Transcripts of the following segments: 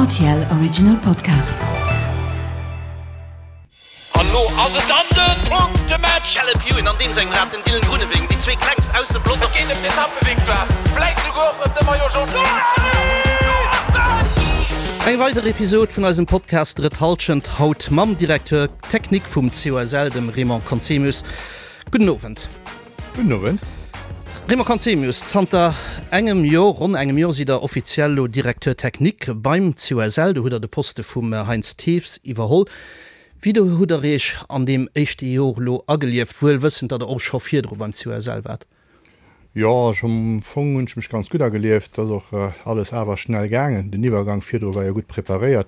Rtl Original Podcast. An lo ass et dann den Punktematch! Caleb Ewan an deem sengem Rad den Dylan Groenewegen, déi zwee klengst aus dem Pelotong. Et geet ëm d'Etappevictoire, vläit souguer och ëm de Maillot Jaune. Eng weider Episod vun eisem Podcast Drëtt Halschent, haut mam Directeur Technique vum COSL, dem Raymond Conzemius. Gudden Owend. Gudden Owend. Raymond Conzemius, zanter engem Jor, ronn engem Jor, sidd Der offiziell elo Directeur technique beim COSL. Do hutt Der de Poste vum Heinz Thews iwwerholl. Wéi do hutt Der Iech an deem éischte Jor elo agelieft, wuel wëssend, datt Der och scho virdru beim COSL waart? Jo, ech am Fong hunn ech mech ganz gutt agelieft. Et ass och alles awer schnell gaangen. Den Iwwergang virdru war jo gutt preparéiert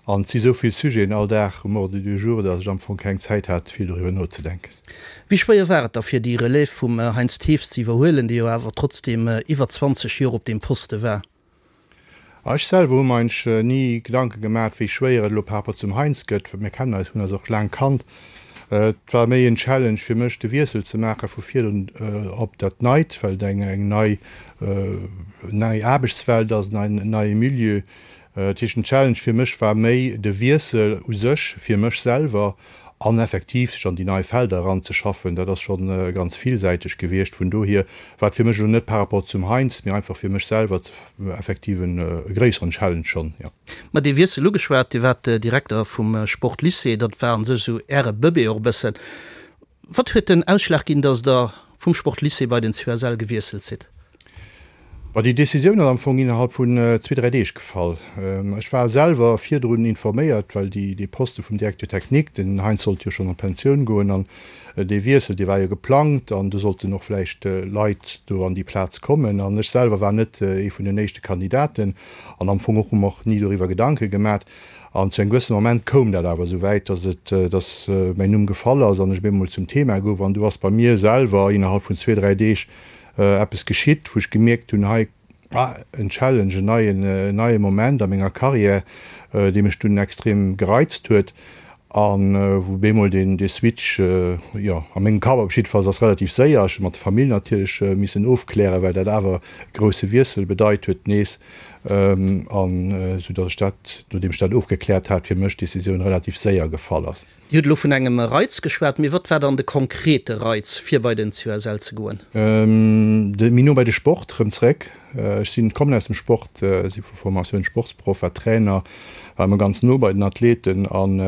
an et si sou vill Sujeten all Dag um Ordre du jour, datt ech am Fong keng Zäit hat, vill doriwwer nozedenken. Wéi schwéier war et da fir déi Relève vum Heinz Thews ze iwwerhuelen, dee jo awer trotzdeem iwwer 20 Joer op deem Poste war? Ech selwer hu mer eigentlech ni Gedanke gemat, wéi schwéier et elo par rapport zum Heinz gëtt, well mir kennen eis, hunn eis och laang kannt. Et war méi en Challenge fir mech, de Wiessel ze maache vu virdrun op dat Neit, well et eng nei nei Aarbechtswelt ass, en neie Milieu. Dat heescht, den Challenge fir mech war méi de Wiessel u sech fir mech selwer an effektiv sech an déi nei Felder eranzeschaffen. Dat ass scho ganz villsäiteg gewiescht. Vun dohier war et fir mech elo net par rapport zum Heinz, mee einfach fir mech selwer effektiv e gréisseren Challenge schonn, jo. Mä dee Wiessel ugeschwat, Dir waart Direkter vum Sportlycée, dat war a sech esou Äre Bëbee och e bëssen. Wat huet den Ausschlag ginn, datt Der vum Sportlycée bei den COSL gewiesselt sidd? Bon, déi Decisioun ass am Fong innerhalb vun zwee, dräi Deeg gefall. Ech war selwer virdrun informéiert, well déi, dee Poste vum Directeur technique, den Heinz sollt jo schonn an d'Pensioun goen an dee Wiessel, dee war jo geplangt an do sollten och vläicht Leit do an déi Plaz kommen. An ech selwer war net ee vun den éischte Kandidaten an am Fong och hu mer och ni doriwwer Gedanke gemat. An zu engem gewëssene Moment koum dat awer esou wäit, dass et, dass mäin Numm gefall ass an ech op eemol zum Thema gouf. An du ass bei mir selwer innerhalb vun zwee, dräi Deeg eppes geschitt, wou ech gemierkt hunn, hei, ah, en Challenge, en neien, en neie Moment a menger Karriär, dee mech dunn extrem gereizt huet a wou bemol deen, dee Switch, jo, a mengem Kapp op jiddefalls ass relativ séier, ech hu mat der Famill natierlech missen ofklären, well dat awer e grousse Wiessel bedeit huet nees, an esou datt ech dat, nodeem ech dat ofgekläert hat, fir mech d'Decisioun relativ séier gefall ass. Dir hutt elo vun engem Reiz geschwat, mee wat war dann de konkrete Reiz, fir bei den COSL ze goen? De méi no bei de Sport erëm zréck. Ech sinn, kommen aus dem Sport, si vu Formatioun Sportsproff, war Trainer, war ëmmer ganz no bei den Athleten an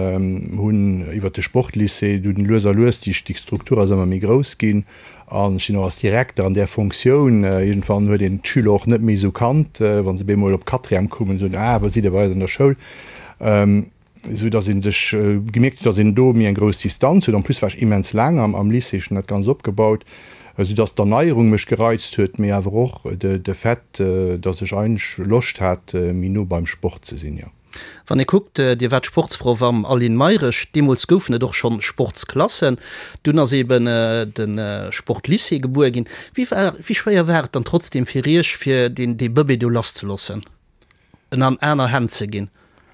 hunn iwwert de Sportlycée dunn lues a lues, déi Struktur ass ëmmer méi grouss ginn an ech sinn och als Direkter an där Fonctioun, iergendwann huet een d'Schüler och net méi esou kannt, wa se bemol op Quatrième koumen, soen, ah, wat sidd Dir bei eis an der Schoul? Esou dass ee sech gemierkt huet, dass een do méi eng grouss Distanz huet. En plus war ech immens laang am Lycée, ech hunn dat Ganzt opgebaut, esou dass d'Erneierung mech gereizt huet, mee awer och de Fait, dass ech eigentlech Loscht hat, méi no beim Sport ze sinn, jo. Wann ee kuckt, Dir waart Sportsproff am Aline Mayrisch, deemools goufen et och schonn Sportsklassen, dunn ass eeben de Sportlycée gebuer ginn. Wéi war, wéi schwéier war et dann trotzdeem fir Iech, fir deen, dee Bëbee do lasszeloossen? En an aner Hänn ze ginn.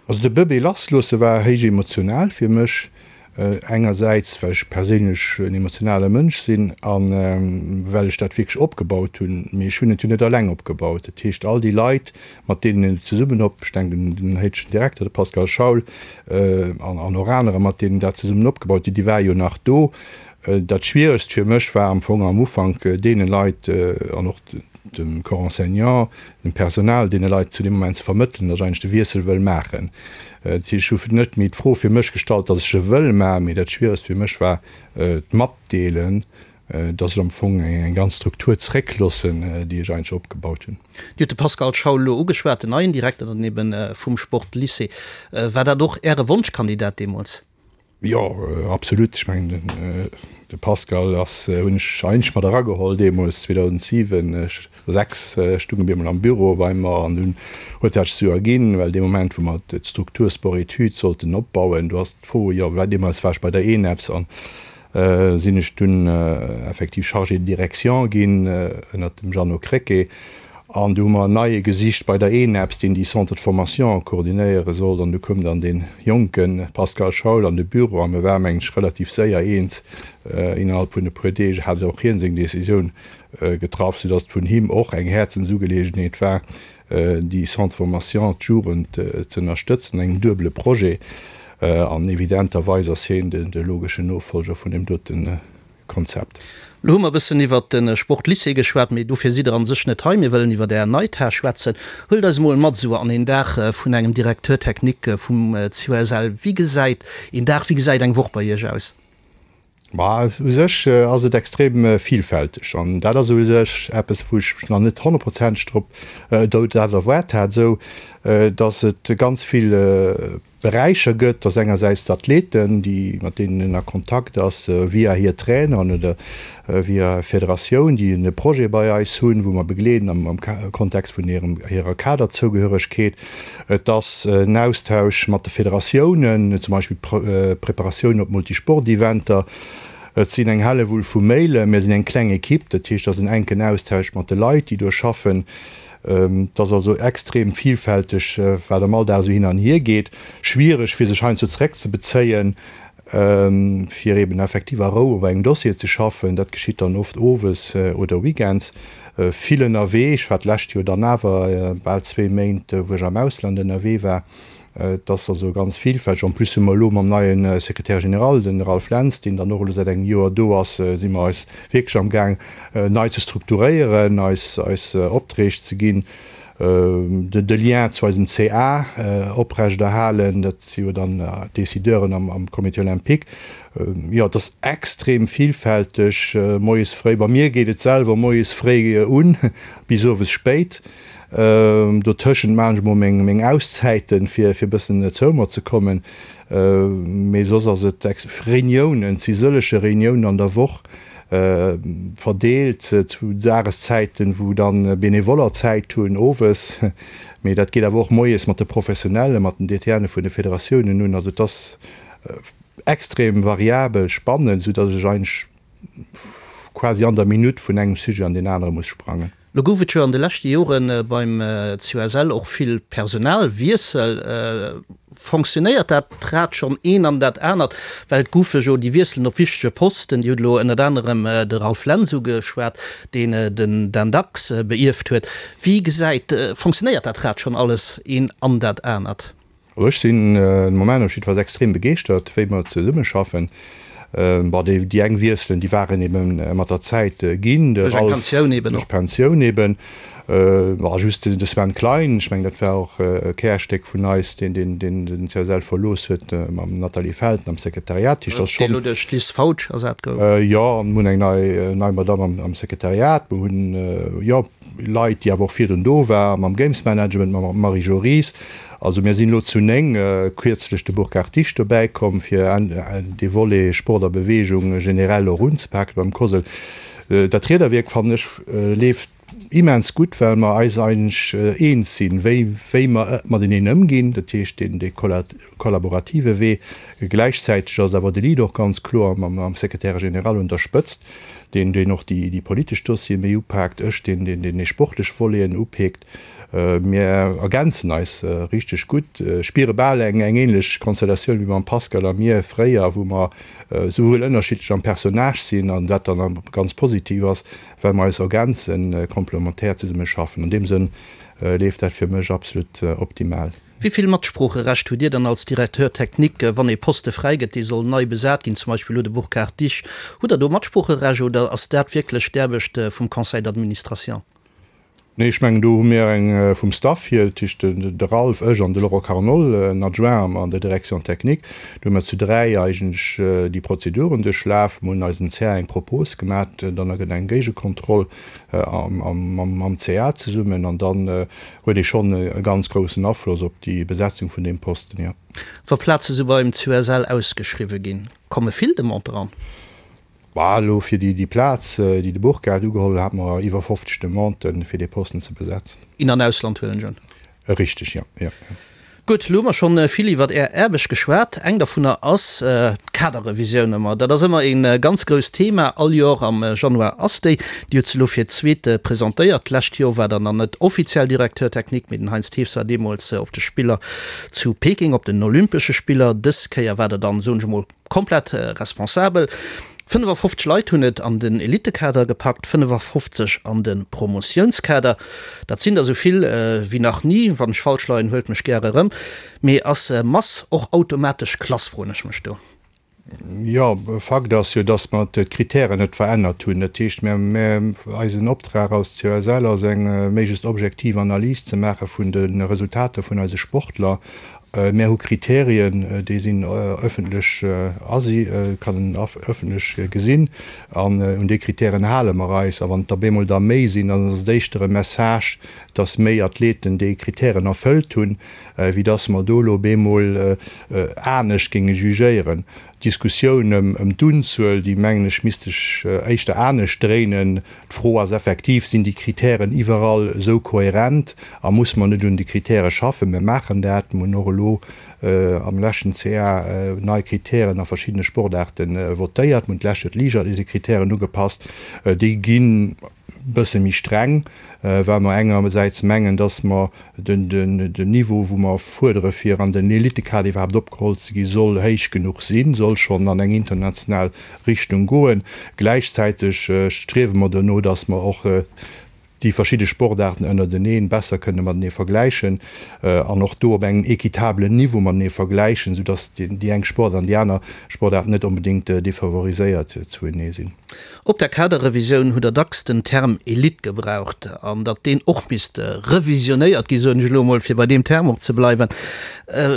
Also de Bëbee lassloosse war héich emotional fir mech. Engersäits well ech perséinlech en emotionale Mënsch sinn a well ech dat wierklech opgebaut hunn. Mee ech hunn et jo net alleng opgebaut. Dat heescht all déi Leit, mat deenen een et zesummen op, ech denken un den héidegen Direkter, de Pascal Schaul, an och anerer, mat deenen dat zesummen opgebaut hunn, déi ware jo nach do. Dat Schwieregst fir mech war am Fong am Ufank deene Leit an och dem Corps enseignant, dem Personal, deene Leit zu deem Moment ze vermëttelen, datt ech eigentlech de Wiessel wëll maachen. Dat heescht, ech hu net méi d'Fro fir mech gestallt, datt ech e wëll maachen, mee dat Schwieregst fir mech war d'Matdeelen, datt ech am Fong eng ganz Struktur zréckloossen, déi ech eigentlech opgebaut hunn. Dir hutt de Pascal Schaul elo ugeschwat, den neien Direkter dann ebe vum Sportlycée. War dat och Äre Wonschkandidat deemools? Jo, absolut. Ech mengen, de Pascal ass, hunn ech eigentlech mat erageholl deemools 2007, 6 stung e bemol am Büro bei mer an dunn huet dat sech esou erginn, well dee Moment, wou mer d'Struktur Sport-Études sollten opbauen, do ass d'Fro, jo, well deemools war ech bei der ENEPS an sinn ech dunn effektiv Chargé de direction ginn ënnert dem Jeannot Krecké. An du hu mer en neie gesicht bei der ENEPS, deen déi Centre de formation koordinéiere sollt. An du koum dann dee jonke Pascal Schaul an de Büro a mir ware mengen ech relativ séier eens. Innerhalb vun e puer Deeg hat och hien seng Decisioun getraff, soudass et vun him och eng Häerzensugeleegenheet war. déi Centre de formation, d'Jugend ze ënnerstëtzen, engem duebele Projet. An evidenterweis ass hien de logeschen Nofolger vun deem dote Konzept. Lo hu mer e bëssen iwwert de Sportlycée geschwat, mee dofir sidd Der an sech net hei. Mir wëllen iwwert Är nei Tâche schwätzen. Huelt eis emol mat esou an een Dag vun engem Directeur technique vum COSL. Wéi gesäit een Dag, wéi gesäit eng Woch bei Iech aus? Ma u sech ass et extrem vielfälteg an dat ass u sech eppes, wou ech mech nach net honnertprozenteg drop dat erwaart hat, esou datt et ganz vill Beräicher gëtt, dass engersäits d'Athleten, déi mat deenen en a Kontakt ass via hir Traineren oder via Federatioun, déi e Projet bei eis hunn, wou mer begleeden am Kontext vun hirem hirer Kaderzougehöregkeet. Et ass en Austausch mat de Federatiounen, zum Beispill d'Preparatioun op Multisport-Eventer. Et sinn eng Hellewull vu Mailen. Mir sinn eng kleng Ekipp, dat heescht, et ass en enken Austausch mat de Leit, déi do schaffen. Et ass also extrem vielfälteg, wat am Alldag esou hin an hier geet. Schwiereg, fir sech heiansdo zeréckzebezéien, fir eben effektiv a Rou op engem Dossier ze schaffen. Dat geschitt dann oft owes oder weekends. Vill ënnerwee. Ech war d'lescht Joer dann awer bal zwee Méint, wou ech am Ausland ënnerwee war. Et ass also ganz vielfälteg. En plus hu mer elo mam neie Secrétaire général, den Ralph Lentz, deen dann och elo säit engem Joer do ass, si mer eis wierklech am Gaang nei ze strukturéieren, eis eis Opträg ze ginn, de Lien zu eisem CA oprechterhalen, dat si jo dann d'Décideuren am Comité olympique. Jo, et ass extrem vielfälteg. Moies fréi, bei mir geet et selwer moies fréi un bis owes spéit. Dotëschent maachen ech mol meng Auszäiten, fir e bëssen zou mer ze kommen. Mee soss ass et Reuniounen, et si sëllege Reuniounen an der Woch, verdeelt zu Dageszäiten, wou dann Benevoller Zäit hunn, owes. Mee dat geet awer och moies mat de Professionellen, mat den DTNe vun de Federatiounen un. Also et ass extrem variabel, spannend, soudatt ech eigentlech quasi an der Minutt vun engem Sujet an deen anere muss sprangen. Lo gouf et jo an de leschte Jore beim COSL och vill Personalwiessel. Fonctionnéiert dat Rad schonn een an dat anert? Well et goufe jo déi Wiesselen op wichtege Posten, Dir hutt elo ënnert anerem de Ralph Lentz ugeschwat, deen den Dan Dax beierft huet. Wéi gesäit, fonctionnéiert dat Rad schonn alles een an dat anert? Also ech sinn de Moment op jiddefalls extrem begeeschtert, wéi mer zesummeschaffen. Bon, déi déi eng Wiesselen, déi waren ebe mat der Zäit ginn, de Duerch eng Ralph Pensioun eben duerch och. Pensioun eben. Bon, just de Sven Klein, ech mengen, dat war och e Kärstéck vun eis, deen deen deen den CSL verlooss huet mam Nathalie Felten am Sekretariat. Dat heescht, dat ass Deen schonn. elo duerch d'Liz Fautsch ersat gouf. Jo, an mir hunn eng nei nei Madamm am am Sekretariat. Mir hunn, jo, Leit, déi awer och virdrun do war, mam Games Management, mam Marie-Jo Ries. Also mir sinn elo zu 9, kierzlech de Burkhard Disch dobäi komm, fir dee Volet Sport a Beweegung generell och unzepaken beim COSL. Dat Riederwierk, fannen ech, leeft immens gutt, well mer eis eigentlech eens sinn, wéi wéi mer mateneen ëmginn, dat heescht deen dee kollaborative Wee. Gläichzäiteg ass awer de Lead och ganz kloer mam Secrétaire général un der Spëtzt, deen deen och déi déi politesch Dossiere méi upaakt, ech deen deen deen déi sportlech Voleten upeekt. Mir ergänzen eis richteg gutt, spiere bal eng eng ähnlech Konstellatioun wéi mam Pascal a mir fréier, wou mer souwuel ënnerschiddlech am Personnage sinn an dat dann ganz positiv ass, well mer eis ergänzen, komplementär zesumme schaffen. An deem Sënn leeft dat fir mech absolut optimal. Wéi vill Matsproocherecht hutt Dir dann als Directeur technique, wann ee Poste fräi gëtt, dee soll nei besat ginn, zum Beispill elo de Burkhard Disch? Hutt Der do Matsproocherecht oder ass dat wierklech d'Aarbecht vum Conseil d'administration? Nee, ech mengen, do hu mir eng vum Staff hier, dat heescht de Ralph, ech an de Laurent Carnol, en Adjoint an der Direction technique. Do hu mir zu 3 eigentlech déi Prozeduren duerchlaf. Mir hunn eisem CA eng Propos gemat, dann gëtt eng Géigekontroll mam CA zesummen an dann huet ee schonn e ganz groussen Afloss op déi Besetzung vun deem Posten, jo. Wa Plaze sou beim COSL ausgeschriwwe ginn, komme vill Demanden eran? Bah, elo fir déi Plaz, déi de Burkhard ugeholl huet, hate mer iwwer 50 Demanden, fir dee Posten ze besetzen. In an Ausland huelen ech un. Richteg, jo, jo. Gutt, elo hu mer schonn vill iwwert Är Aarbecht geschwat. Eng dovunner ass d'Kaderrevisioun ëmmer. Dat ass ëmmer ee ganz grousst Thema. All Joer am Januar ass déi. Dir hutt se elo fir d'zweet presentéiert. D'lescht Joer war Der nach net offiziell Directeur technique, mee den Heinz Thews war deemools op de Spiller zu Peking, op den Olympesche Spiller. Dës Kéier war Der dann, soen ech emol, komplett responsabel. 55 Leit hunn et an den Elittekader gepackt, 55 an de Promotiounskader. Dat sinn der esou vill wéi nach ni. Wann ech falsch leien, huelt mech gäre erëm. Mee ass Mass och automatesch Klass, froen ech mech do. Jo, Fakt ass jo, dass mer d'Kritären net verännert hunn. Dat heescht, mir, eisen Optrag als COSL ass eng méiglechst objektiv Analys ze maache vun de Resultater vun eise Sportler. Mär hu Kriterien, déi sinn ëffentlech asi, kann een ëffentlech gesinn. An un déi Kritären hale mer eis. A wann et der bemol der méi sinn, dann ass et éischter e Message, dass méi Athleten déi Kritären erfëllt hunn, wéi dass mer do elo bemol anescht géinge jugéieren. D'Diskussioun ëm d'Unzuel, déi mengen ech misst sech éischter anescht dréinen. D'Fro ass effektiv, Sinn déi Kritären iwwerall esou kohärent a muss mer net un de Kritäre schaffen? Mir maachen dat. Mir hunn och elo am leschten CA nei Kritären a verschiddene Sportaarte votéiert. Mir hunn d'lescht Joer d'Liichtathletekritären ugepasst. Déi ginn e bësse méi streng, well mer engersäits mengen, dass mer den Niveau, wou mer fuerdere fir an den Elitekader iwwerhaapt opgeholl ze ginn, soll héich genuch sinn, soll schonn an eng international Richtung goen. Gläichzäiteg striewe mer dono, dass mer och déi verschidde Sportaarten ënnerteneen besser kënne matenee vergläichen an och do op engem équitablen Niveau matenee vergläichen, soudass déi eng Sportaart an déi aner Sportaart net onbedéngt defavoriséiert zuenee sinn. Op der Kaderrevisioun hutt Der dacks den Term Elite gebraucht an datt deen och misst revisionéiert ginn, soen ech elo emol, fir bei deem Term och ze bleiwen.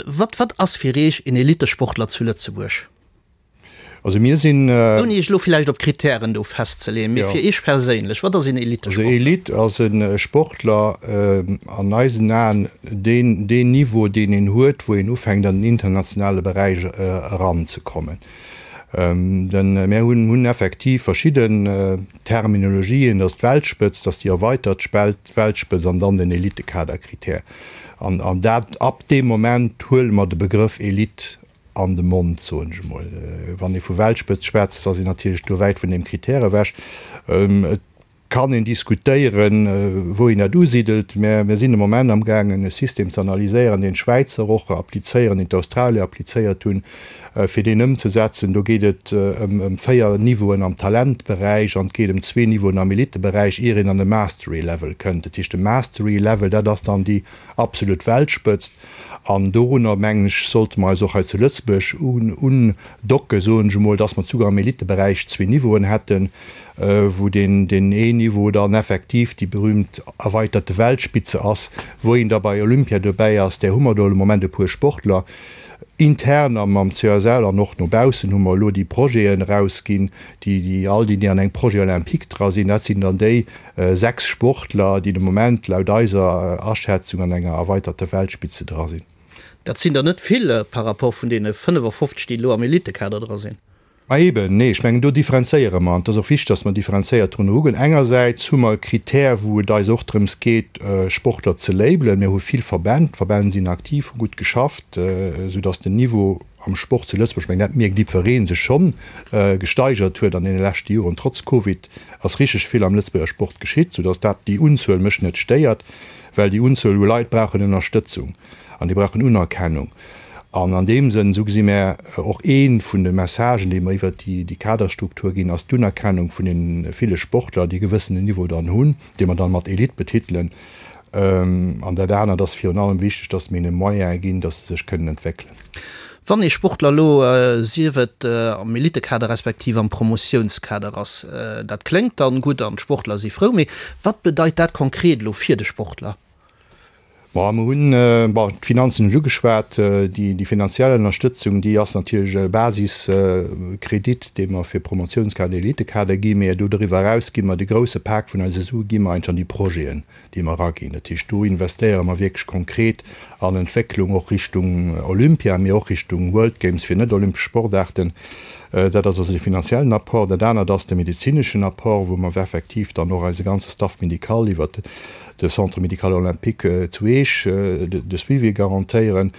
Wat, wat ass fir Iech een Elitesportler zu Lëtzebuerg? Also mir sinn. Ouni Iech elo villäicht op Kritären do festzeleeën, mee fir Iech perséinlech, wat ass een Elitesportler? Also Elite ass e Sportler an eisen Aen, deen deen Niveau, deen een huet, wou een ufänkt an den internationale Beräich eranzekommen. Mär hunn effektiv verschidden Terminologien, dat ass d'Weltspëtzt, dat ass déi erweitert Weltspëtzt an dann den Elitekaderkritär. An dat, ab deem Moment huele mer de Begrëff Elite an de Mond, soen ech emol. Wann ee vu Weltspëtzt schwätzt, ass een natierlech do wäit vun deem Kritär ewech. Et kann een diskutéieren, wou een dat usidelt, mä mir sinn de Moment amgaangen e System ze analyséieren, deen d'Schwäizer och applizéieren, deen d'Australier applizéiert hunn, fir deen ëmzesetzen. Do geet et ëm 4 Niveauen am Talentberäich an et geet ëm zwee Niveauen am Elitteberäich, ier een an de Mastery Level kënnt. Dat heescht, de Mastery Level, dat ass dann déi absolut Weltspëtzt. An dorunner, mengen ech, sollte mer eis och hei zu Lëtzebuerg undocken, soen ech emol, dass mer souguer am Elitteberäich zwee Niveauen hätten, wou deen een Niveau dann effektiv déi berühmt erweiterte Weltspitze ass, wou een da bei Olympia dobäi ass. Där hu mer do de Moment e puer Sportler. Intern am CSL an och no baussen hu mer elo déi Projeten erausginn, déi all déi, déi an engem Projet olympique dra sinn, dat sinn dann déi 6 Sportler, déi de Moment laut eiser Aschätzung an enger erweiterter Weltspitze dra sinn. Dat sinn der net vill par rapport vun deene 55, déi elo am Elitekader dra sinn. Ma eben, nee, ech mengen, do differenzéiere mer. An et ass och wichteg, dass mer differenzéiert drun erugoen. Engersäits hu mer e Kritär, wou et eis och drëms geet, Sportler ze labelen. Mir hu vill Verbänn, d'Verbänn sinn aktiv, hu gutt geschafft, soudass den Niveau am Sport zu Lëtzebuerg, ech mengen, dat mierkt jiddweree, sech schonn gesteigert huet an deene leschte Joren. Trotz Covid ass richteg vill am Lëtzebuerger Sport geschitt, soudass dat déi Unzuel mech net stéiert, well déi Unzuel u Leit brauchen Ënnerstëtzung an déi brauchen Unerkennung. An an deem Sënn, esou gesi mär och ee vun de Messagen, déi mer iwwert déi Kaderstruktur ginn, ass d'Unerkennung vun deene ville Sportler, déi e gewëssenen Niveau dann hunn, dee mer dann mat Elite betitelen. An dat anert ass virun allem wichteg, dass mir hinne Moyene ginn, dass se sech kënnen entwéckelen. Wann ee Sportler elo, sief et am Elitekader respektiv am Promotiounskader ass, dat kléngt dann gutt an d'Sportler si frou, mee wat bedeit dat konkret elo fir de Sportler? Bon, mer hunn, bon, d'Finanzen hunn ech ugeschwat. Déi finanziell Ënnerstëtzung, déi ass natierlech e Basiskredit, dee mer fir Promotiounskader, Elitekader ginn. Mee do doriwwer eraus gi mer de grousse Pak vun eise Sue gi mer eigentlech an déi Projeten, déi mer eraginn. Dat heescht, do investéiere mer wierklech konkret an Entwécklung, och Richtung Olympia, mee och Richtung World Games fir net-olympesch Sportaarten. Dat ass also de finanziellen Apport. Dat anert ass de medezineschen Apport, wou mer effektiv dann och eise ganze Staff médical iwwert de Centre médical olympique zu Eech de Suivi garantéieren.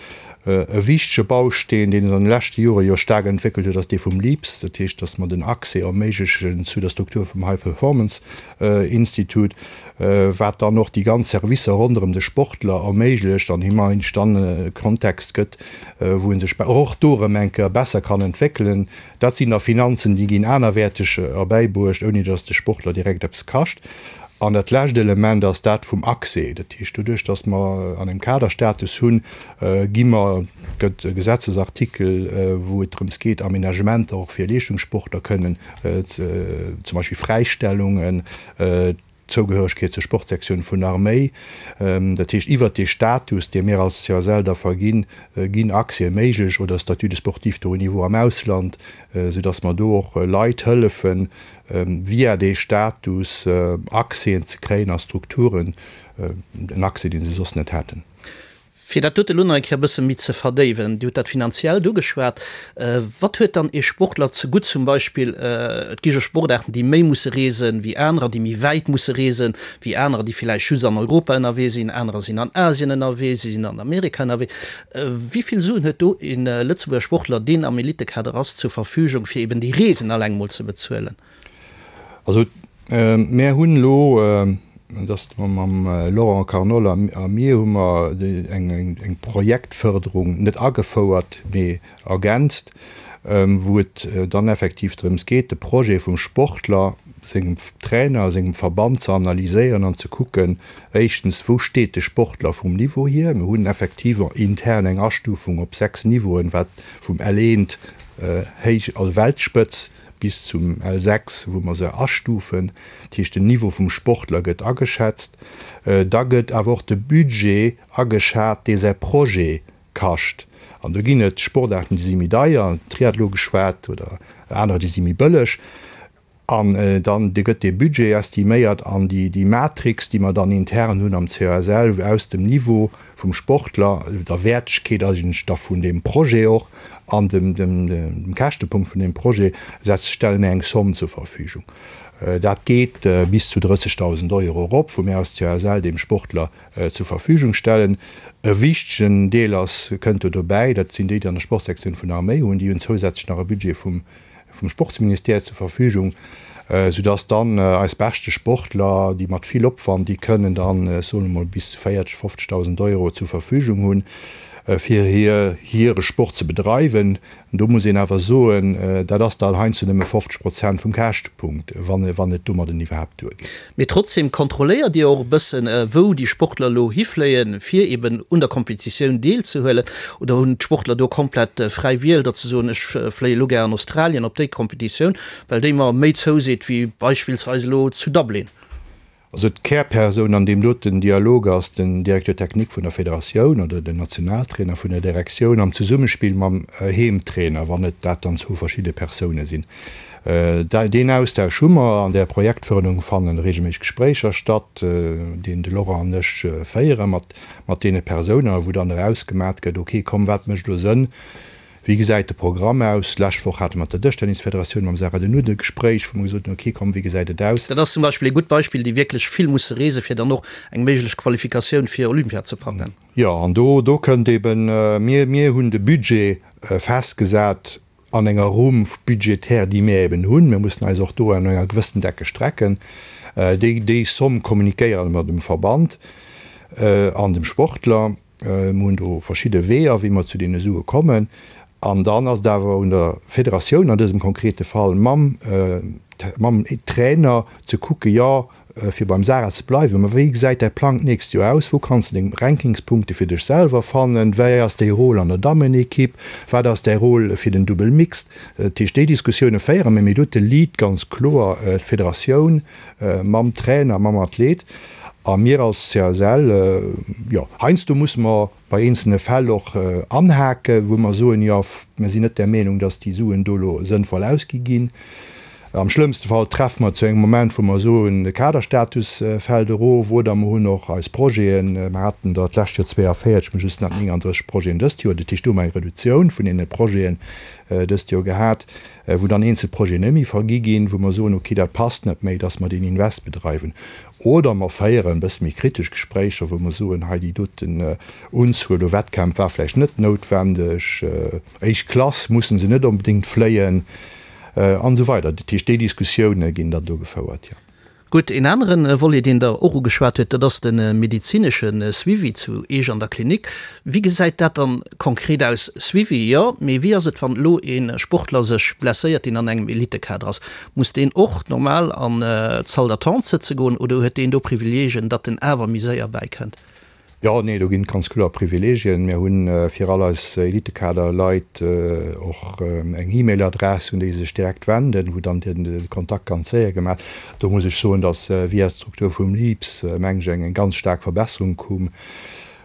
E wichtege Bausteen, deen sech an de leschte Jore jo staark entwéckelt huet, ass dee vum LEAPS, dat heescht, datt mer den Accès erméiglechen zu der Struktur vum High Performance Institute, wat dann och déi ganz Servicer ronderëm de Sportler erméiglecht an him eigentlech dann e Kontext gëtt, wou e sech och do erëm eng Kéier besser kann entwéckelen. Dat sinn da Finanzen, déi ginn anerwäerteg erbäibruecht, ouni datt de Sportler direkt eppes kascht. An dat lescht Element ass dat vum Accès. Dat heescht, doduerch datt mer an engem Kaderstatus hunn, gi mer, gëtt e Gesetzesartikel, wou et drëms geet, Aménagementer och fir Leeschtungssportler kënnen, zum Beispill Fräistellungen, Zougehöregkeet zur Sportsektioun vun der Arméi, dat heescht iwwert dee Status, dee mir als CSL da verginn, ginn Accèse méiglech oder Statut de sportif de haut niveau am Ausland, soudass mer do och Leit hëllefen, via dee Status Accèsen ze kréien a Strukturen, en Accès, dee se soss net hätten. Fir dat dote lo nach eng Kéier e bësse méi ze verdéiwen, Dir hutt dat Finanziellt ugeschwat. Wat huet dann ee Sportler zegutt zum Beispill, et gi jo Sportaarten, déi méi musse reesen wéi anerer, déi méi wäit musse reesen wéi anerer, déi villäicht just an Europa ënnerwee sinn, anerer sinn an Asien ënnerwee, si sinn an Amerika ënnerwee. Wéi vill Suen huet do e Lëtzebuerger Sportler, deen am Elitekader ass, zur Verfügung, fir eben déi Reesen alleng mol ze bezuelen? Also mär hunn elo, dat ass mam Laurent Carnol a mir, hu mer eng Projektförderung net agefouert, mee ergänzt, wou et dann effektiv drëms geet, de Projet vum Sportler, sengem Trainer, sengem Verband ze analyséieren an ze kucken, éischtens, wou steet de Sportler vum Niveau hier. Mir hunn effektiv intern eng Astufung op 6 Niveauen, wat vum L1, héich, also Weltspëtz, bis zum L6, wou mer se astufen, dat heescht den Niveau vum Sportler gëtt ageschätzt. Da gëtt awer och de Budget ageschat, dee säi Projet kascht. An do ginn et Sportaarten, déi si méi deier, Triathlon geschwat, oder anerer, déi si méi bëlleg. An dann gëtt dee Budget estiméiert an déi Matrix, déi mer dann intern hunn am CASL, aus dem Niveau vum Sportler, der Wäertegkeet eigentlech da vun deem Projet och an dem Käschtepunkt vun deem Projet, setzt, stelle mir eng Somme zur Verfügung. Dat geet bis zu 30.000 Euro erop, wou mir als CASL deem Sportler zur Verfügung stellen. E wichtegen Deel ass, kënnt do dobäi, dat sinn déi, déi an der Sportsektioun vun der Arméi hunn, déi hunn zousätzlech nach e Budget vum vum Sportsministère zur Verfügung, soudass dann eis beschte Sportler, déi mat vill Opwand, déi kënnen dann, ech soen emol, bis zu 40, 50.000 Euro zur Verfügung hunn, fir hir hire Sport ze bedreiwen. Do muss een awer soen, dat ass dann heiansdo nëmme 50 Prozent vum Käschtepunkt, wann wann et domadden iwwerhaapt duergeet. Mee trotzdem kontrolléiert Dir och e bëssen, wou déi Sportler elo hifléien, fir eben un der Kompetitioun deelzehuelen? Oder hunn d'Sportler do komplett fräi Wiel, datt se soen, ech fléie elo gär an Australien op déi Kompetitioun, well déi mer méi zouseet wéi beispillsweis elo zu Dublin? Also d'Kärpersoun an deem doten Dialog ass den Directeur technique vun der Federatioun oder den Nationaltrainer vun der Direktioun am Zesummespill mam Heemtrainer, wann et dat dann zwou verschidde Persoune sinn. Deen Austausch hu mer. An där Projektförderung fannen regelméisseg Gespréicher statt, deen de Laurent an ech féiere mat mat deene Persounen a wou dann erausgemat gëtt, ok, komm, wat mécht elo Sënn, wéi gesäit de Programm aus. D'lescht Woch hate mer mat der Dëschtennisfederatioun, mam Sarah De Nutte e Gespréich, wou mer gesot hunn, ok, komm, wéi gesäit et aus. Dat ass zum Beispill ee gutt Beispill, déi wierklech vill musse reesen, fir dann och eng méiglech Qualifikatioun fir Olympia ze packen. Jo, an do do kënnt eben, mir mir hunn de Budget festgesat an enger Rumm budgétaire, déi mir eben hunn, mir mussen eis och do an enger gewëssen Decke strecken, déi, déi Somme kommunikéiere mer dem Verband an dem Sportler. Mir hunn do verschidde Weeër, wéi mer zu deene Sue kommen. An dann ass et awer un der Federatioun, an dësem konkrete Fall mam, mam Trainer ze kucken, jo, Fir beim Sarah ze bleiwen, ma wéi gesäit däi Plang d'nächst Joer aus? Wou kanns de deng Rankingspunkte fir dech selwer fannen? Wéi ass däi Rôle an der Dammenekipp? Wat ass däi Rôle fir den Dubbel Mixed? Dat heescht, déi Diskussioune féiere mir, mee do huet de Lead ganz kloer d'Federatioun mam Trainer, mam Athlet a mir als CSL. Jo, heiansdo musse mer bei eenzelne Fäll och anhaken, wou mer soen, jo, mir sinn net der Meenung, datt déi Suen do elo sënnvoll ausgi ginn. Am schlëmmste Fall treffe mer zu engem Moment, wou mer soen, de Kaderstatus fält erof, oder mer hunn och eis Projeten, mer haten der d'lescht Joer 42, mer just nach 39 Projeten dëst Joer, dat heescht do hu mer eng Reduktioun vun deene Projeten dëst Joer gehat, wou dann eenzel Projeten net méi vergi ginn, wou mer soen, okay, dat passt net méi, dass mer deen Invest bedreiwen. Oder mer féieren e bësse méi kritesch Gespréicher, wou mer soen, hei déi doten Unzuel u Wettkämpf war vläicht net noutwendeg, éischt Klass musse se net onbedéngt fléien. An esou weider. Dat heescht, déi Diskussioune ginn dann do gefouert, jo. Gutt, een anere Volet, deen Der och ugeschwat huet, dat ass de medezinesche Suivi zu Eech an der Klinik. Wéi gesäit dat dann konkret aus? Suivi, jo, mee wéi ass et, wann elo ee Sportler sech blesséiert, deen an engem Elitekader ass? Muss deen och normal an d'Salle d'attente sëtze goen oder huet deen do Privileegien, datt en awer méi séier bäikënnt? Jo, nee, do ginn et ganz kloer Privilegien. Mir hu fir all eis Elitekader-Leit och eng E-Mail-Adress, un déi se sech direkt wenden, wou dann de Kontakt ganz séier gemaach. Do muss ech soen, datt via d'Struktur vum LIPS, meng ech, eng ganz staark Verbesserung koum.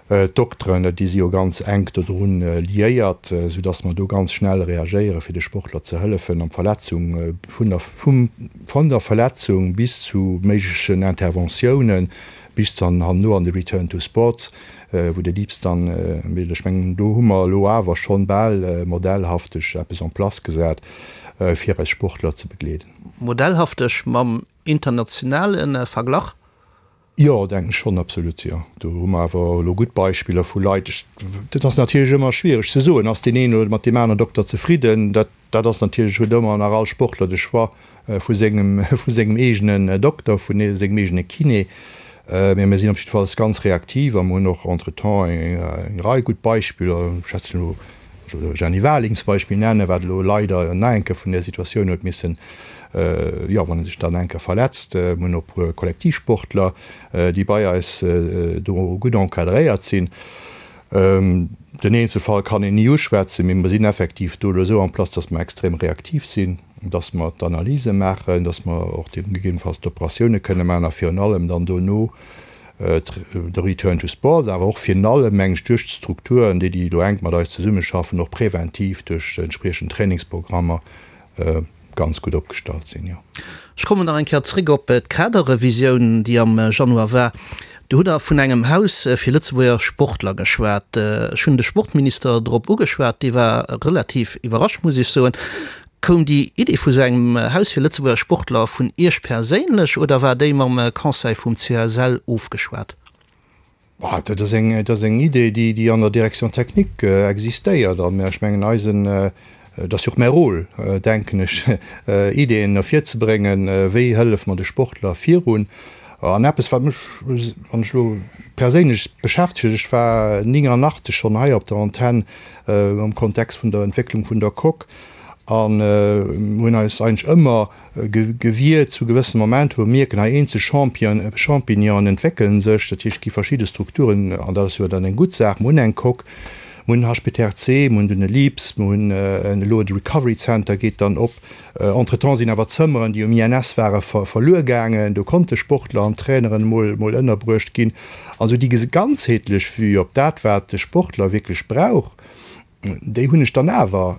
D'Dokteren, déi si jo ganz enk dodrun liéiert, soudatt mer do ganz schnell reagéiere fir de Sportler ze hëllefen an d'Verletzung, vun der, vum, von der Verletzung bis zu méiglechen Interventiounen, Bis dann herno an de Return to Sports, wou de Liebs dann, mee ech mengen do hu mer elo awer schonn bal modellhafteg eppes en place gesat, fir eis Sportler ze begleeden. Modellhafteg mam internationale Verglach? Jo, denken ech schonn, absolut, jo. Do hu mer awer elo gutt Beispiller vu Leit. Dat ass natierlech ëmmer schwiereg ze soen, ass deen een oder mat deem aneren Dokter zefridden. Dat Dat ass natierlech, huet ëmmer nach all Sportler de Choix vu sengem, vu sengem eegenen Dokter, vu sengem eegene Kiné. Mee mir sinn op jiddefalls ganz reaktiv a mir hunn och entretemps eng Rei gutt Beispiller, ech schwätzen elo, ech wëll elo Jenny Warling zum Beispill nennen, wat elo leider nach eng Kéier vun där Situatioun huet missen, jo, wann e sech dann eng Kéier verletzt. Mir hunn och e puer Kollektivsportler, déi bei eis do gutt encadréiert sinn. Den Eenzelfall kann een ni uschwätzen, mee mer sinn effektiv do elo esou en place, dass mer extrem reaktiv sinn, dass mer d'Analyse maachen, dass mer och gegebenenfalls d'Operatioune kënne maachen a virun allem dann dono de Return to Sport, awer och virun allem, meng ech, duerch d'Strukturen, déi déi elo enk mat eis zesummeschaffen, och präventiv duerch entspriechend Trainingsprogrammer ganz gutt opgestallt sinn, jo. Ech kommen nach eng Kéier zréck op d'Kaderrevisioun, déi am Januar war. Do hutt Der vun engem Haus fir Lëtzebuerger Sportler geschwat. Ech hunn de Sportminister drop ugeschwat, dee war relativ iwwerrascht, muss ech soen. Koum déi Idee vu sou engem Haus fir Lëtzebuerger Sportler vun Iech perséinlech oder war déi mam Conseil vum CSL ofgeschwat? Dat ass eng, dat ass eng Idee, déi, déi an der Direction technique existéiert. An ech mengen, eisen, et ass jo och mäi Rôle, denken ech, Ideeën ervirzebréngen, wéi hëllef mer de Sportler virun. An eppes, wat mech, wann ech elo perséinlech beschäftegt, ech war 89 schonn hei op der Antenn am Kontext vun der Entwécklung vun der Coque an hunn eis eigentlech ëmmer, Gewier zu gewëssene Momenter, wou mer mierken, hei eenzel Champignonen entwéckelen sech, dat heescht, et gi verschidde Strukturen, an dat ass jo dann eng gutt Saach. Mer hunn eng Coque, mer hunn HPTRC, mer hunn dunn e LIPS, mer hunn elo de Recovery Center geet dann op. Entretemps sinn awer Zëmmeren, déi um INS ware verluer gaangen, do konnte Sportler an Traineren emol ënnerbruecht ginn. Also déi ganzheetlech Vue op dat, wat de Sportler wierklech brauch, Déi hunn ech dann awer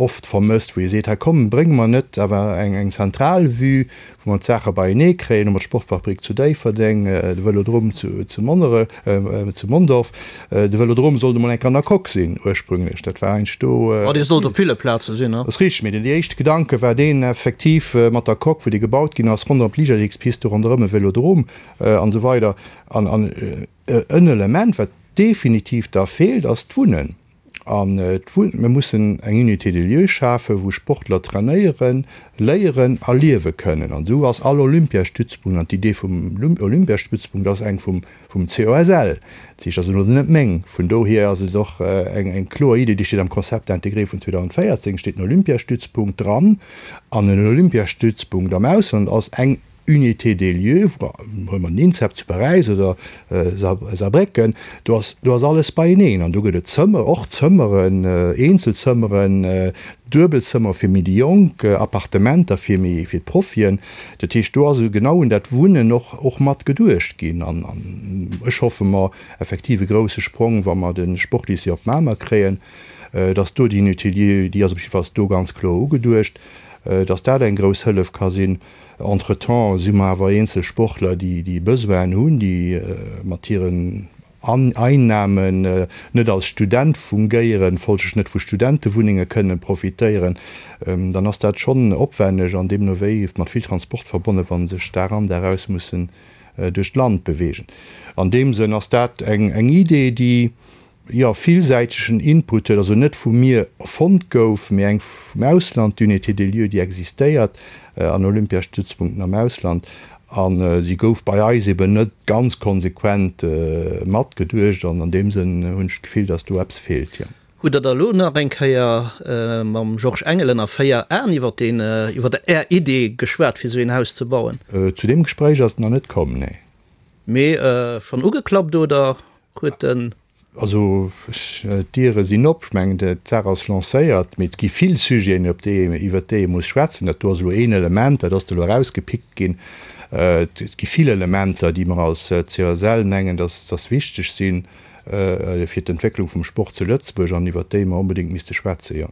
oft vermësst, wou ee seet, hei komm, bréng mer net awer eng zentral Vue, wou mer d'Saache beienee kréien. Hu mer d'Sportfabrik zu Déifferdeng, de Vëlodrom zu Monnerech, zu Mondorf. De Vëlodrom sollt emol eng Kéier an der Coque sinn ursprünglech, dat war eigentlech do. Oh, dee sollt op ville Plaze sinn, ne? Ass richteg, mee den éischte Gedanke war deen effektiv mat der Coque, wou déi gebaut ginn ass, ronderëm d'Liichtathletikspist, do ronderëm e Vëlodrom an esou weider. An en Element, wat definitiv da feelt, ass d'Wunnen. An mir mussen eng Unité de lieu schafen, wou Sportler trainéieren, léieren a liewe kënnen. An esou ass all Olympiastützpunkt, an d'Idee vum Olympiastützpunkt ass eng vum COSL, dat heescht, ass elo net meng, vun dohier ass et och eng kloer Idee, déi steet am Concept intégré vun 2014, steet den Olympiastützpunkt dran. An en Olympiastützpunkt am Ausland ass eng Unité des lieux, huele mer den INSEP zu Paräis oder Saarbrécken, do ass, do ass alles beieneen an do gëtt et Zëmmer, och Zëmmeren, Eenzelzëmmeren, Duebelzëmmer fir méi déi Jonk, Appartementer fir méi, fir d'Profien. Dat heescht, do ass genau un dat Wunnen och, och mat geduecht ginn an ech hoffe mer effektiv e grouse Sprong, wa mer de Sportlycée op Mamer kréien, dass do déi Unité de lieux, déi ass op jiddefalls do ganz kloer ugeduecht. Dass dat eng grouss Hëllef ka sinn. Entretemps si mer awer eenzel Sportler, déi Besoinen hunn, déi mat hiren Einnamen net als Student fungéieren, folglech net vu Studentewunnenge kënnen profitéieren. Dann ass dat schonn opwenneg an deemno wéi mat vill Transport verbonnen, wa se sech Dag an Dag aus mussen duerch d'Land beweegen. An deem Sënn ass dat eng Idee, déi jo, villsäitegen Input huet, also net vu mir erfonnt gouf, mee eng vum Ausland, d'Unité de lieu, déi existéiert an Olympiastützpunkten am Ausland, a si gouf bei eis eben net ganz konsequent matgeduecht an an deem Sënn hunn ech d'Gefill, datt do eppes feelt, jo. Hutt Der da elo nach eng Kéier mam Georges Engel ënner 4 Aen iwwer deen, iwwer Är Idee geschwat, fir esou een Haus ze bauen? Zu deem Gespréich ass et nach net komm, nee. Mee schonn ugeklappt oder huet den. Also d'Diere sinn op, ech mengen d'Saach ass lancéiert, mee et gi vill Sujeten, op déi, iwwert déi ee muss schwätzen. Dat do ass elo een Element, dat ass elo erausgepickt ginn. Et gi vill Elementer, déi mer als CSL mengen, dass dass wichteg sinn fir d'Entwécklung vum Sport zu Lëtzebuerg an iwwert déi mer onbedéngt misste schwätzen, jo.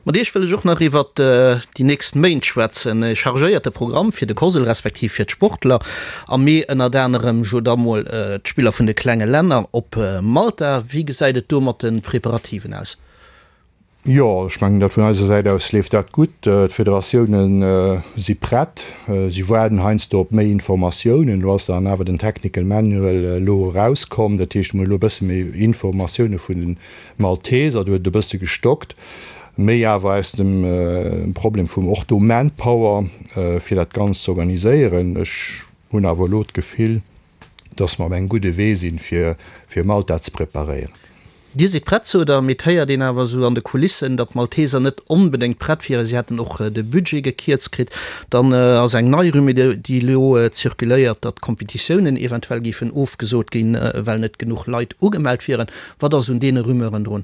Mat Iech wëll ech och nach iwwert déi nächst Méint schwätzen. E chargéierte Programm fir de COSL respektiv fir d'Sportler. Am Mee ënnert anerem jo da mol d'Spiller vun de klenge Länner op Malta. Wéi gesäit et do mat de Preparativen aus? Jo, ech mengen dat vun eiser Säit aus leeft dat gutt. D'Federatioune si prett. Si waarden heiansdo op méi Informatiounen. Elo ass dann awer den Technical Manual elo erauskomm. Dat heescht, mir hu elo e bësse méi Informatioune vun den Malteser, do huet et e bësse gestockt, méi awer aus dem Problem vum och do Manpower, fir dat Ganzt ze organiséieren. Ech hunn awer elo d'Gefill, dass mer op engem gudde Wee sinn, fir fir Malta ze preparéieren. Dir sidd prett, sot Der, mee et héiert een awer esou an de Kulissen, datt d'Malteser net onbedéngt prett wieren. Si hätten och de Budget gekierzt kritt. Dann ass eng nei Rumeur, déi elo zirkuléiert, datt d'Kompetitiounen eventuell géifen ofgesot ginn, well net genuch Leit ugemellt wieren. Wat ass un deene Rumeuren drun?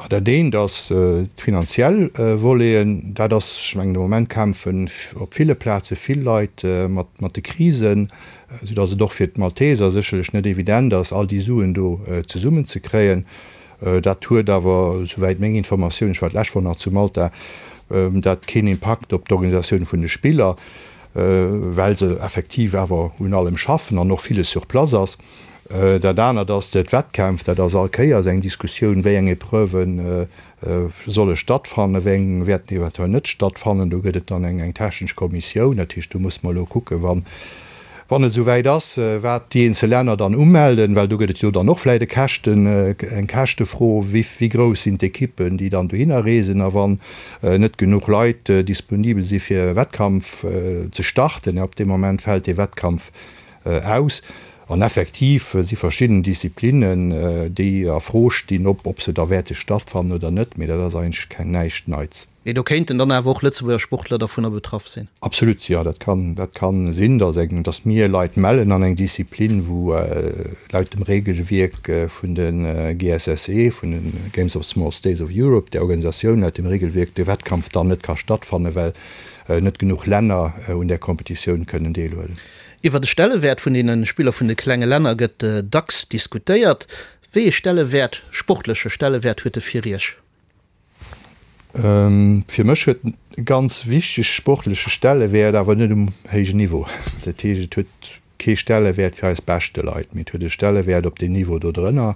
Dat eent ass d'finanziell Voleten. Dat ass, ech mengen, de Moment kämpfen op ville Plaze vill Leit mat de Krisen, soudatt et och fir d'Malteser sécherlech net evident ass, all déi Suen do zesummenzekréien. Dat huet awer, souwäit meng Informatioun, ech war d'lescht Woch nach zu Malta, dat keen Impakt op d'Organisatioun vun de Spiller, well se effektiv awer un allem schaffen an och villes sur place ass. Dat anert ass d'Wettkämpf. Dat ass all Kéiers eng Diskussioun, wéi eng Epreuven solle stattfannen, wéi eng wäerten eventuell net stattfannen. Do gëtt et dann eng technesch Kommissioun. Dat heescht, do musse mer elo kucken, wann et esou wäit ass, wat déi eenzel Länner dann umelden, well do gëtt et jo dann och vläicht e Käschten, eng Käschtefro, wéi grouss sinn d'Ekippen, déi dann dohinner reesen a wann net genuch Leit disponibel si fir e Wettkampf ze starten, ab deem Moment fält dee Wettkampf aus. An effektiv si verschidden Disziplinnen, déi a Fro stinn, ob ob se da wäerte stattfannen oder net, mee dat ass eigentlech keng näischt Neits. Mee do kéinten dann awer och Lëtzebuerger Sportler dervunner betraff sinn? Absolut, jo, dat kann, dat kann sinn, dass eng, dass mir Leit mellen an eng Disziplin, wou laut dem Regelwierk vun de GSSE, vun de Games of Small States of Europe, där Organisatioun, laut dem Regelwierk de Wettkampf dann net ka stattfannen, well net genuch Länner un där Kompetitioun kënnen deelhuelen. Iwwer de Stellewäert vun deene Spiller vun de klenge Länner gëtt dacks diskutéiert. Wéi ee Stellewäert, sportleche Stellewäert huet e fir Iech? Fir mech huet en e ganz wichtege sportleche Stellewäert, awer net um héijen Niveau. Dat heescht, et huet kee Stellewäert fir eis beschte Leit, mee et huet e Stellewäert op deem Niveau do drënner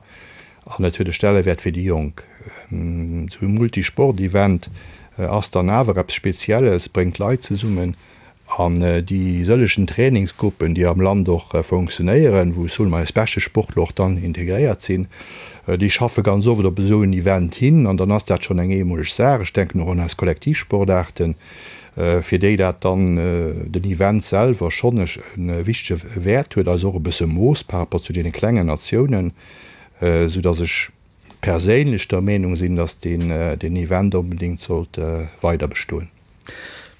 an et huet e Stellewäert fir déi Jonk. Esou e Multisport-Event ass dann awer eppes Spezielles, bréngt Leit zesummen. An déi sëllegen Trainingsgruppen, déi am Land och funktionéieren, wou soen mer eis beschte Sportler och dann integréiert sinn, déi schaffe ganz oft op esou en Event hin. An dann ass dat schonn eng eemoleg Saach. Ech denken och un eis Kollektivsportaarten, fir déi dat dann den Event selwer schonn e wichtege Wäert huet, eis och e bësse moosst par rapport zu deene klengen Natiounen, soudass ech perséinlech der Meenung sinn, dass deen Event onbedéngt sollt weiderbestoen.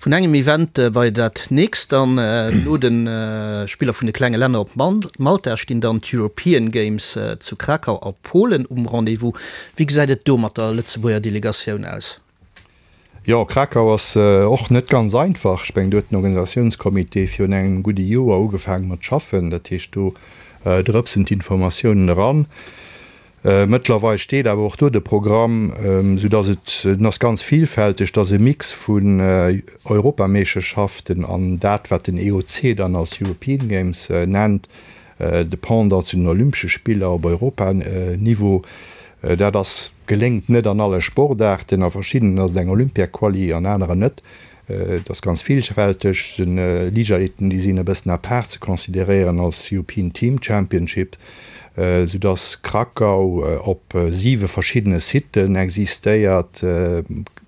Vun engem Event bei dat nächst dann. No de Spiller vun de klenge Länner op Malta stinn dann d'European Games zu Krakau a Polen um Rendez-vous. Wéi gesäit et do mat der Lëtzebuerger Delegatioun aus? Jo, Krakau ass och net ganz einfach. Ech mengen, do huet den Organisatiounscomité virun engem gudde Joer ugefaange mat schaffen. Dat heescht, do drëpsen d'Informatiounen eran. Mëttlerweil steet awer och do de Programm, sou dass et, en ass ganz vielfälteg, et ass e Mix vun Europameeschterschaften an dat wat den EOC dann als European Games nennt, de Pendant zu den Olympesche Spiller op Europaniveau. Dat ass, geléngt net an alle Sportaarten, a verschiddenen ass et eng Olympiaquali, an aneren net. Et ass ganz villfälteg. Den Liichtathleten, déi sinn e bëssen à part ze consideréieren als European Team Championship, sou dass Krakau op siwe verschiddene Siten existéiert.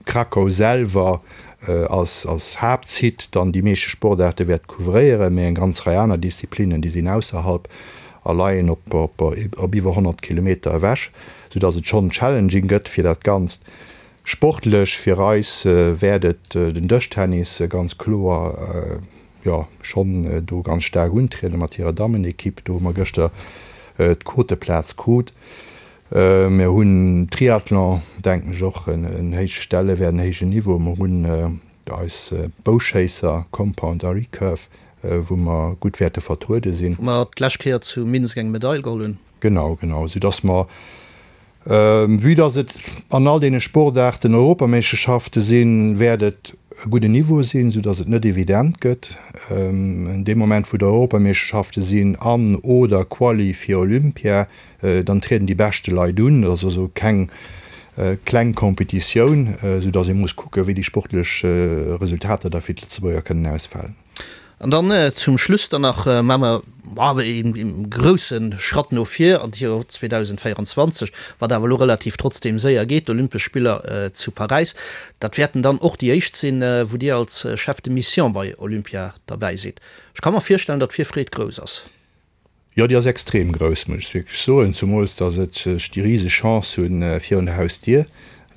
Krakau selwer als als Haaptsite dann déi meeschte Sportaarte wäert couvréieren, mee eng ganz Rei aner Disziplinnen, déi sinn ausserhalb a leien op op op iwwer 100 Kilometer ewech, sou dass et schonn challenging gëtt fir dat Ganzt. Sportlech fir eis wäert et den Dëschtennis ganz kloer, jo, schonn do ganz staark untrieden mat hirer Dammenekipp. Do hu mer gëschter d'Quoteplaz krut. Mir hunn Triathlon, denken ech, och en héije Stellewäert, en héijen Niveau. Mer hunn eis Bouschéisser, Compound a Recurve, wou mer gutt wäerte vertruede sinn. Wou mer d'lescht Kéier zu Minsk eng Medail geholl hunn. Genau, genau, soudass mer Vue dass et an all deene Sportaarten Europameeschterschafte sinn, wäert et e gudden Niveau sinn, sou dass et net evident gëtt. Dee Moment wou et Europameeschterschafte sinn an oder Quali fir Olympia, dann trieden déi beschte Leit un. Dat ass also keng kleng Competitioun, sou dass ee muss kucken, wéi déi sportlech Resultater da fir d'Lëtzebuerger kënnen ausfalen. An dann zum Schluss dann nach maache mer ee grousse Schratt no vir an d'Joer 2024, wat awer elo relativ trotzdeem séier geet, d'Olympesch Spiller zu Paräis. Dat wäerten dann och déi éischt sinn, wou Dir als Chef de Mission bei Olympia derbäi sidd. Ech ka mer virstellen, datt d'Virfreed grouss ass. Jo, déi ass extrem grouss, muss ech wierklech soen, zumools datt et ech déi riseg Chance hunn, virun der Hausdier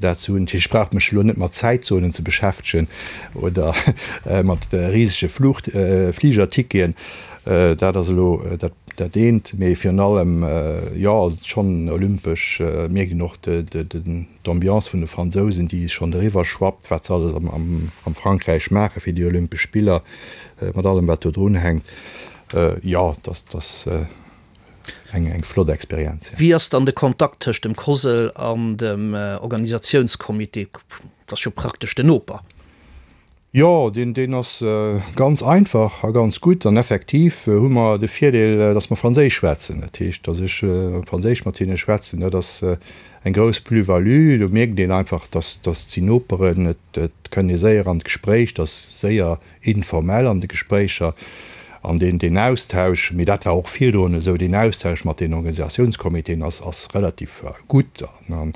dat ze hunn. Ech brauch mech elo net mat Zäitzonen ze beschäftegen oder mat risege Fluch Fligerticketen, dat ass elo dat dat eent. Mee virun allem, jo, ass et schonn olympesch, mierkt een och d'Ambiance vun de Fransousen, déi schonn eriwwer schwappt, wat se alles am Frankräich maache fir déi Olympesch Spiller, mat allem wat do drun hänkt. Jo, dat ass eng flott Experienz. Wéi ass dann de Kontakt tëscht dem COSL an dem Organisatiounscomité? Dat ass jo praktesch den Noper. Jo, deen ass ganz einfach a ganz gutt. An effektiv hu mer de Virdeel, datt mer Franséisch schwätzen. Dat heescht, datt ech Franséisch mat hinne schwätzen, dat ass eng grouss Plus-value. Do mierkt een einfach, datt si Noperen, et kënnt ee séier an d'Gespréich, et ass séier informell an de Gespréicher an deen, deen Austausch, mee dat war och virdrun esou, deen Austausch mat den Organisatiounscomitéen ass, ass relativ gutt an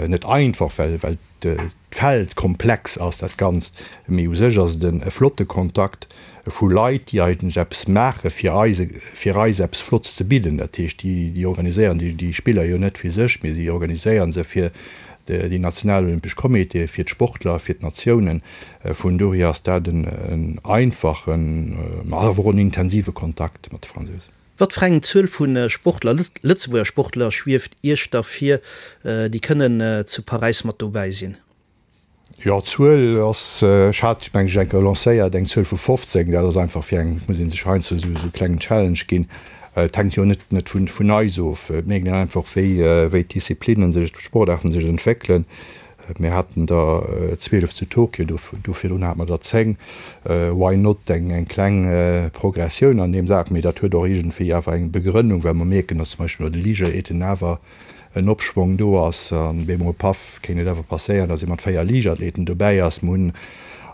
net einfach, well, well d'Feld komplex ass, dat Ganzt, mee u sech ass et e flotte Kontakt vu Leit, déi eigentlech eppes maache fir eis, fir eis eppes Flottes ze bidden. Dat heescht, déi, déi organiséieren déi, déi Spiller jo net fir sech, mee si organiséiere se fir déi national olympesch Comitéen, fir d'Sportler, fir d'Natiounen. Vun dohier ass dat en einfachen, ma awer och en intensive Kontakt mat de Fransousen. Wat fir eng Zuel vu Sportler, Lëtzebuerger Sportler, schwieft Iech da vir, déi kënnen zu Paräis mat dobäi sinn? Jo, d'Zuel ass, ech hat, meng ech, eng Kéier lancéiert, eng Zuel vu 15. Dat ass einfach fir eng, et muss ee sech heiansdo esou e klengen Challenge ginn. Et hänkt jo net net vun eis of. Et mierkt een einfach, wéi wéi d'Disziplinnen sech, d'Sportaarten sech entwéckelen. Mir haten der 12 zu Tokio, do virdrun hate mer der 10. Why not eng eng kleng Progressioun an deem Saach? Mee dat huet och iergendwéi awer eng Begrënnung, well mer mierken, datt zum Beispill bei de Liichtathleten awer en Opschwong do ass. An bemol, paff, kéint et awer passéieren, datt ee mat 4 Liichtathleten dobäi ass. Mer hunn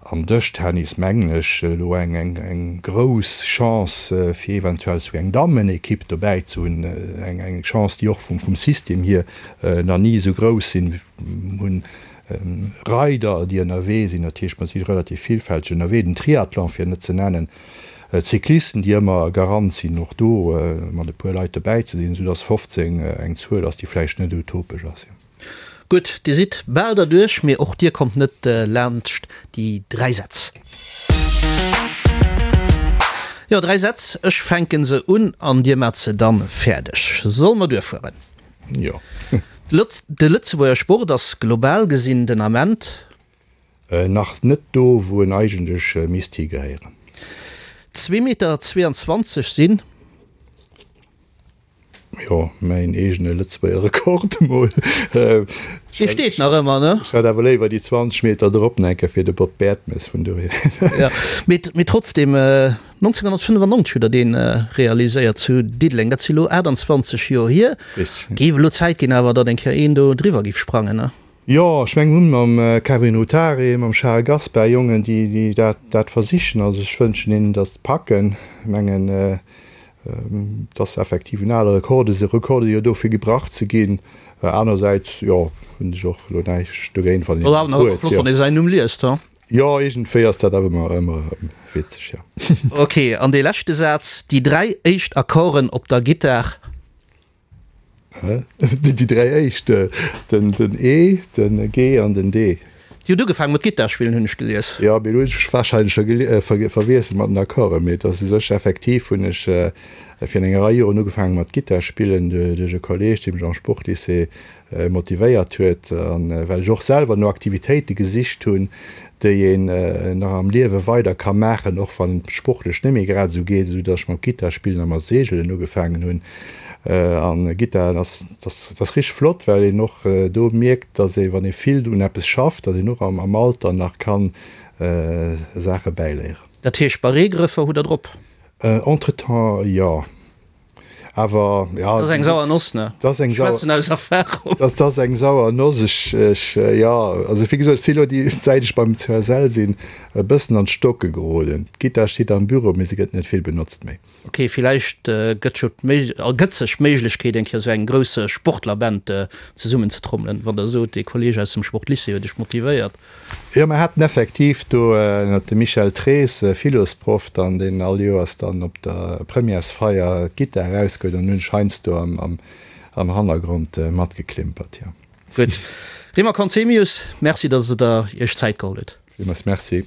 am Dëschtennis, mengen ech, elo eng eng eng grouss Chance, fir eventuell esou eng Dammenekipp dobäi ze hunn. Eng eng Chance, déi och vum vum System hier nach ni esou grouss sinn. Mir hunn Reider, déi ënnerwee sinn, dat heescht, mer si relativ villfälteg ënnerwee, den Triathlon fir net ze nennen, d'Cyclisten, déi ëmmer Garant sinn, och do mat e puer Leit dobäi ze sinn, soudass 15 eng Zuel ass, déi vläicht net utopesch ass. Gutt, Dir sidd bal derduerch, mee och Dir kommt net laanscht déi 3 Sätz. Jo, 3 Sätz, ech fänke se un an Dir maacht se dann fäerdeg. Solle mer duerfueren? Jo. De Lëtzebuerger Sport ass global gesinn den Ament. Nach net do, wou en eigentlech misst higehéieren. Zwee Meter 22 sinn. Jo, mäin eegene Lëtzebuerger Rekord emol. Dee steet nach ëmmer, ne? Ech hätt awer léiwer déi 20 Meter drop enke fir de Bob Bertemes, vun dohier. Jo, mee trotzdem, 1995 hutt Der dee realiséiert zu Diddeleng. Dat si lo 28 Joer hier. Richteg. Géif elo Zäit ginn awer, datt eng Kéier een do driwwer géif sprangen, ne? Jo, ech mengen, mir hunn mam Kevin Rutari, mam Charel Gaspar Jongen, déi dat versichen. Also ech wënschen hinnen, datt se packen. Ech mengen, Et ass effektiv en ale Rekord, e Rekord jo do fir gebrach ze ginn. Anersäits, jo, hunn ech och elo näischt dogéint, wann een en huet. Flott, wann ee säin Numm liest, ha? Jo, iergendwéi ass dat awer ëmmer, ëmmer erëm witzeg, jo. Ok, an dee leschte Saz, Déi 3 éischt Akkorden op der Gittar. Déi 3 éischt, den E, den G an den D. Dir hutt ugefaangen mat Gittar spillen, hunn ech gelies. Jo, mee elo hunn ech mech warscheinlech scho verwiesselt mat den Akkorden. Mee et ass u sech effektiv hunn ech virun enger Rei Joren ugefaangen mat Gittar spillen duerch e Kolleeg, dee mech am Sportlycée motivéiert huet an well ech och selwer no Aktivitéite gesicht hunn, déi een nach am Liewe weider ka maachen, och wann et sportlech net méi grad esou geet, esou datt ech mam Gittar spillen a mat Seegelen ugefaangen hunn. An Gittar ass ass richteg flott, well een och do mierkt, datt ee wann ee vill un eppes schafft, datt een och am Alter nach kann Saache bäiléieren. Dat heescht Barrégrëffer hutt der drop? Entretemps jo. Awer ja. Dat ass eng sauer Noss, ne? Dat ass eng sauer. Ech schwätzen aus Erfahrung. Dat ass eng sauer Noss. Ech, ech, jo, also wéi gesot, ech si elo déi, säit ech beim CSL sinn, e bëssen an d'Stocke geroden. D'Gittar steet am Büro, mee se gëtt net vill benotzt méi. Ok, villäicht gëtt jo d'Méig, ergëtt sech d'Méiglechkeet, eng Kéier esou eng grouss Sportlerband zesummenzetrommelen, wann Der sot, dee Kolleeg aus dem Sportlycée huet Iech motivéiert. Jo, mer haten effektiv do ënnert dem Michel Trees, Philosproff dann, deen all Joers dann op der Premièresfeier d'Gittar erausgehuet an hunn ech heiansdo am Hannergrond matgeklimpert, jo. Gutt. Rima Conzemius, Merci, datt Der Iech Zäit geholl hutt. Villmools Merci.